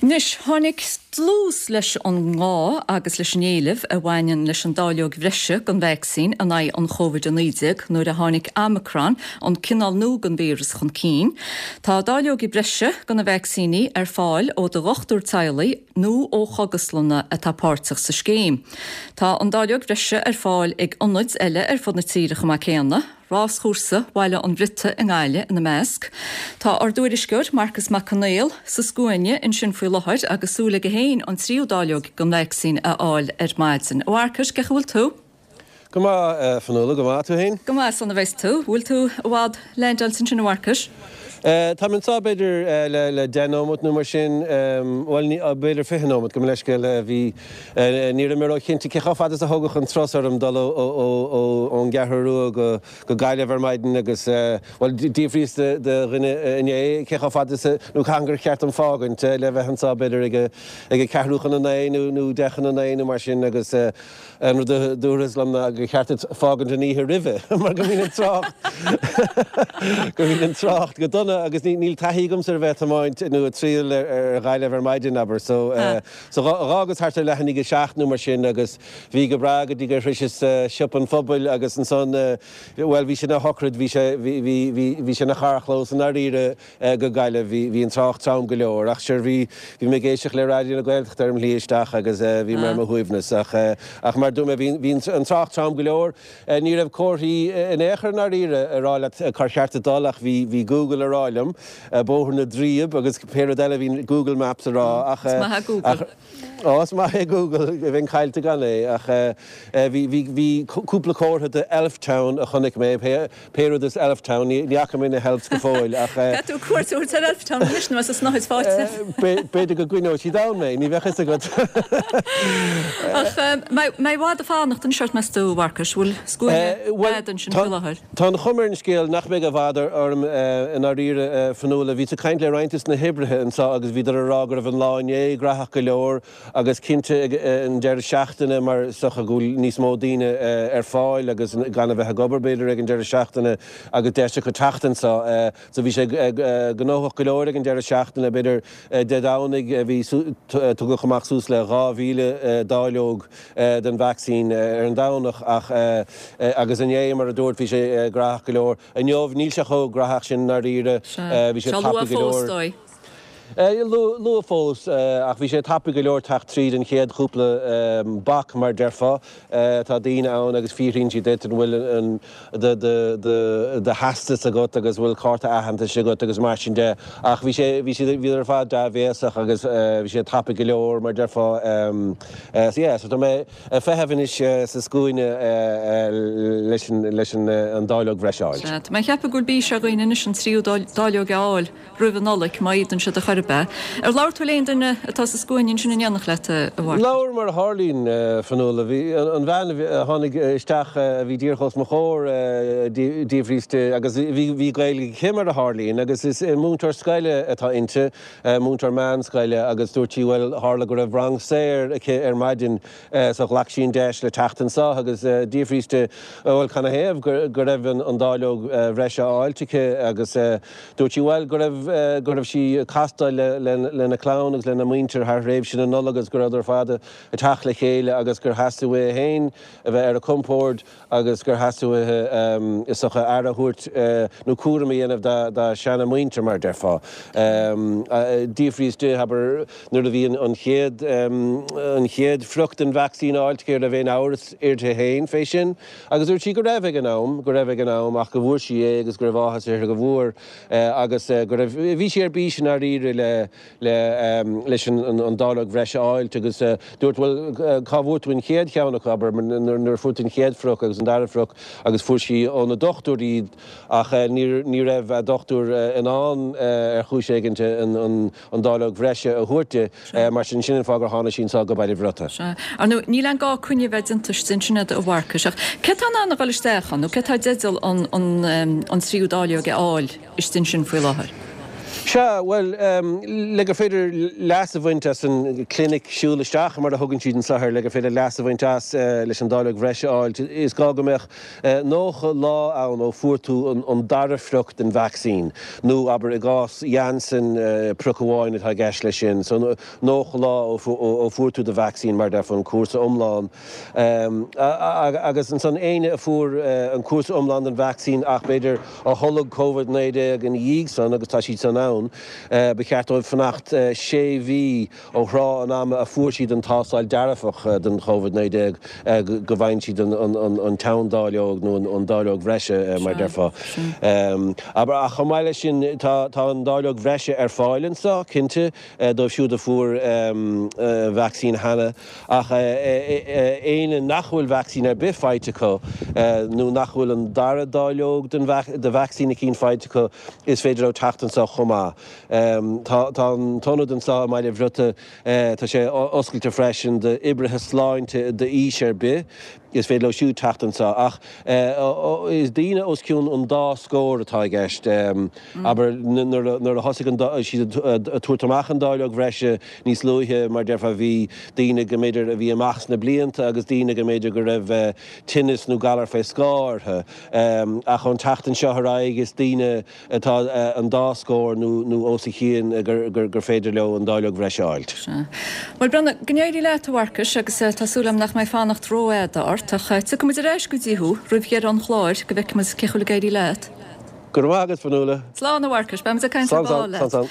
Anois, tháinig dlús leis an ngá agus leis an éileamh a bhaineann leis an dáileog bhreise den vacsaín in aghaidh an Covid-19 nuair a tháinig Omicron, an cineál nua den víreas, chun cinn. Tá dáileogaí breise de na vacsaíní ar fáil ó do dhochtúir teaghlaigh nó ó chógaslanna atá páirteach sa scéim. Tá an dáileog bhreise ar fáil ag ionaid eile ar fud na tíre chomh maith céanna. Ráschúrsa Bhaile an Bhriotaigh i nGaillimh ina measc. Tá ár dtuairisceoir, Marcas Mac Conghail, sa scuaine ansin faoi láthair agus súil aige féin an tríú dáileog den vacsaín a fháil ar maidin. A Mharcais, cén chaoi a bhfuil tú? Go maith, a Fionnuala, go maith. Tú féin? Go maith, sona bheas tú. Bhfuil tú i bhfad leaindeáilte ansin, a Mharcais? Táim anseo b'fhéidir le deich nóimeat nó mar sin, bhuel, b'fhéidir 20 nóimeat, gabh mo leithscéal. Bhí, ní raibh mé ró-chinnte cé chomh fada is a thógfadh an turas orm dul ón gCeathrú Rua go Gaillimh ar maidin agus, bhuel, d'fhiafraíos de dhuine inné cé chomh fada is a, nó cathain gur cheart dom fágaint le bheith anseo b'fhéidir ag a ceathrú chun a naoi nó deich chun a naoi nó mar sin agus, An rud a dúradh liom ná gur cheart duit fágaint an oíche roimhe mar go mbíonn an trácht go mbíonn an trácht go dona agus níl taithí agamsa ar bheith ag tiomáint nó ag triall ar Ghaillimh ar maidin, abair. So so dh'fhágas thart ar leath i ndiaidh a seacht nó mar sin agus bhí go breá go dtí gur shroiseas Siopa an Phobail agus ansan bhuel bhí sé ina shochraid, bhí sé bhí bhí bhí sé ina charrchlós i ndáiríre. go Gaillimh. Bhí, bhí an trácht trom go leor ach sure bhí, bhí mé ag éisteacht le Raidió na Gaeltachta ar mo shlí isteach agus bhí mé ar mo shuaimhneas ach, ach mar a dúirt mé bhí, bhí an trácht trom go leor. Ní raibh comharthaí in aon chor i ndáiríre a rá leat cár cheart duit dul ach bhí, bhí Google a rá liom, Bóthar na dTriab agus pé rud eile a bhí Google Maps a rá ach, Is maith é Google. ach, Ó, is maith é Google, bheinn caillte gan é, ach bhí, bhí, bhí cúpla comhartha de Elftown a chonaic mé, pé, pé rud is Elftown, ní, ní fhaca mé na hElves go fóill, ach. Caithfidh tú cuairt a thabhairt ar Elftown anois nó as an snáthaid faighte. B'fhéidir go gcoinneoidh siad ann mé, ní bheadh fhios agat. Ach mbeidh i bhfad ag fanacht anois ort, meas tú, a Mharcais, bhfuil scuaine fhada ansin faoi láthair? Tá an chuma ar an scéal nach mbeidh i bhfad orm i ndáiríre, a Fionnuala. Bhíos ag caint le roinnt des na hoibrithe anseo agus bhíodar ag rá go raibh an lá inné graitheach go leor agus cinnte ag an deireadh seachtaine mar is dócha go bhfuil níos mó daoine ar fáil agus gan a bheith ag obair b'fhéidir ag an deireadh seachtaine agus deis acu teacht anseo. So bhí sé gnóthach go leor ag an deireadh seachtaine, b'fhéidir Dé Domhnaigh bhí, tugadh amach suas le 2,000 dáileog den vacsaín ar an Domhnach ach agus inné mar a dúirt bhí sé graitheach go leor. Inniu níl sé chomh graitheach sin i ndáiríre, bhí sé tapaidh go leor. Luath fós ach bhí sé tapaidh go leor teacht tríd an chéad chúpla bac mar déarfá. Tá daoine ann agus fiafraíonn siad díot an bhfuil an do do theastas agat agus bhfuil cárta aitheantais agat agus mar sin de ach bhí sé bhí siad bhíodar ar fad dea-bhéasach agus bhí sé tapaidh go leor mar déarfá so yeah so tá mé ag feitheamh anois sa scuaine leis an leis an dáileog bhreise a fháilt. Sea, tá mé ag ceapadh go bhfuil bís ar dhaoine anois an tríú dáileog a fháil. roimh an Nollaig, má fhéadann siad ar chor ar bith. Ar labhair tú le aon duine atá sa scuaine ansin in éineacht leat, a Mharcais? Labhair, mar a tharlaíonn, a Fionnuala. Bhí an bhean a tháinig isteach a bhí díreach os mo chomhair, d'fhiafraíos di, agus bhí Gaeilge aici mar a tharlaíonn, agus is múinteoir scoile atá inti, múinteoir meánscoile, agus dúirt sí, bhuel, tharla go raibh rang saor aici ar maidin so ghlac sí an deis le teacht anseo agus d'fhiafraíos di, bhuel, canathaobh go raibh an dáileog bhreise á fháilt aici agus Dúirt sí, bhuel, go raibh, go raibh sí ag castáil le, lena clann agus lena muintir thar thréimhse na Nollag agus go rabhadar ar fad ag teacht le chéile agus gur theastaigh uaithi féin a bheith ar a compord agus gur theastaigh uaithi, is dócha, aire a thabhairt nó cúram a dhéanamh dá, dá seana-mhuintir, mar a déarfá. D'fhiafraíos di, abair, nuair a bhí an chéad, an chéad phrioc den vacsaín á fháilt aici, an raibh aon amhras uirthi féin fé sin. Agus dúirt sí go raibh ag an am, go raibh ag an am ach go bhfuair sí é agus go raibh áthas uirthi go bhfuair agus go raibh, bhí sí ar bís i ndáiríre le, le, leis an, an dáileog bhreise a fháilt agus dúirt bhuel cá bhfuair tú an chéad cheann acu, abair, nuair a fuair tú an chéad phrioc agus an dara phrioc agus fuair sí óna dochtúir iad ach ní, ní raibh a dochtúir in ann ar chúis éigin an, an, an dáileog bhreise a thabhairt di, mar sin, sin an fáth gur tháinig sí anseo go Baile Bhriotaigh. Sea. Ar ndóigh, níl aon gá coinne a bheith déanta istigh ansin agat, a Mharcais, ach cé atá in ann a dhul isteach ann, nó cé atá i dteideal an, an, an tríú dáileog a fháil istigh ansin faoi láthair? Sea, bhuel, le gur féidir leas a bhaint as an clinic siúl isteach, mar a thugann siad anseo air, le gur féidir leas a bhaint as leis an dáileog bhreise a fháilt, is gá go mbeadh 90 lá ann ó fuair tú an dara phrioc den vacsaín, nó abair i gcás Janssen, prioc amháin atá i gceist leis sin, so 90 lá ó fuair tú do vacsaín, mar a déarfá, an cúrsa iomlán. Agus ansan éinne a fuair an cúrsa iomlán den vacsaín ach b'fhéidir a tholg Covid-19 ina dhiaidh san, agus tá siad san ann, ba cheart dóibh fanacht sé mhí ó thráth an ama a fuair siad an tástáil dearfach don Chovid-19 go bhfaigheann siad an tseandáileog nó an dáileog bhreise, mar a déarfá. Ach chomh maith leis sin, tá an dáileog bhreise ar fáil anso, cinnte, dóibh siúd a fuair vacsaín cheana. Ach éinne nach bhfuil vacsaín ar bith faighte acu, nó nach bhfuil an dara dáileog de vacsaín eicínt faighte acu, is féidir leo teacht anseo chomh maith. Tá an t-ionad anseo i mBaile Bhriota, tá sé oscailte freisin d'oibrithe sláinte d'aois ar bith. Is féidir leo siúd teacht anseo. Ach is daoine os cionn an dá scór atá i gceist. Abair, nuair a thosaigh siad ag tabhairt amach an dáileog bhreise níos luaithe, mar déarfá, bhí daoine go mb'fhéidir a bhí amach sna blianta agus daoine go mb'fhéidir go raibh tinneas nó galar fé scáth orthu. Ach ón tseachtain seo ar aghaidh, is daoine atá an dá scór nó os a chionn gur féidir leo an dáileog bhreise a fháilt. Sea. Bhuel, breathnaigh, go n-éirí leat, a Mharcais, agus tá súil agam nach mbeidh fanacht rófhada ort, ach tiocfaidh muid ar ais go dtí thú roimh dheireadh an chláir go bhfeicfidh muid cén chaoi a bhfuil ag éirí leat. Go raibh maith agat, Fionnuala. Slán, a Mharcais, beidh muid ag caint ar ball leat. Slán, slán, slán.